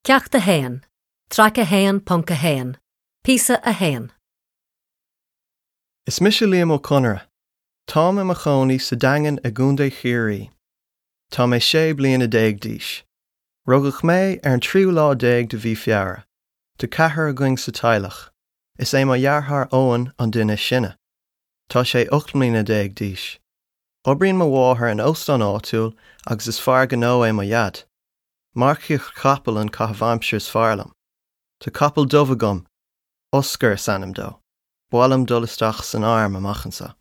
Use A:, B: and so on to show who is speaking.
A: Ceacht 1, Traic 1.1, Píosa 1.
B: Is mise Liam Ó Conaire. Táim i mo chónaí sa Daingean i gContae Chiarraí. Tá mé 16 bliana d'aois. Rugadh mé ar an tríú lá déag de mhí Feabhra. Tá ceathrar againn sa teaghlach. Is é mo dheartháir Eoin an duine is sine. Tá sé 18 mbliana d'aois. Oibríonn mo mháthair in óstán áitiúil agus is fear gnó é mo dhaid. Marcaíocht chapall an caitheamh aimsire is fearr liom. Tá capall dubh agam, Oscar is ainm dó. Ba mhaith liom dul isteach san arm amach anseo.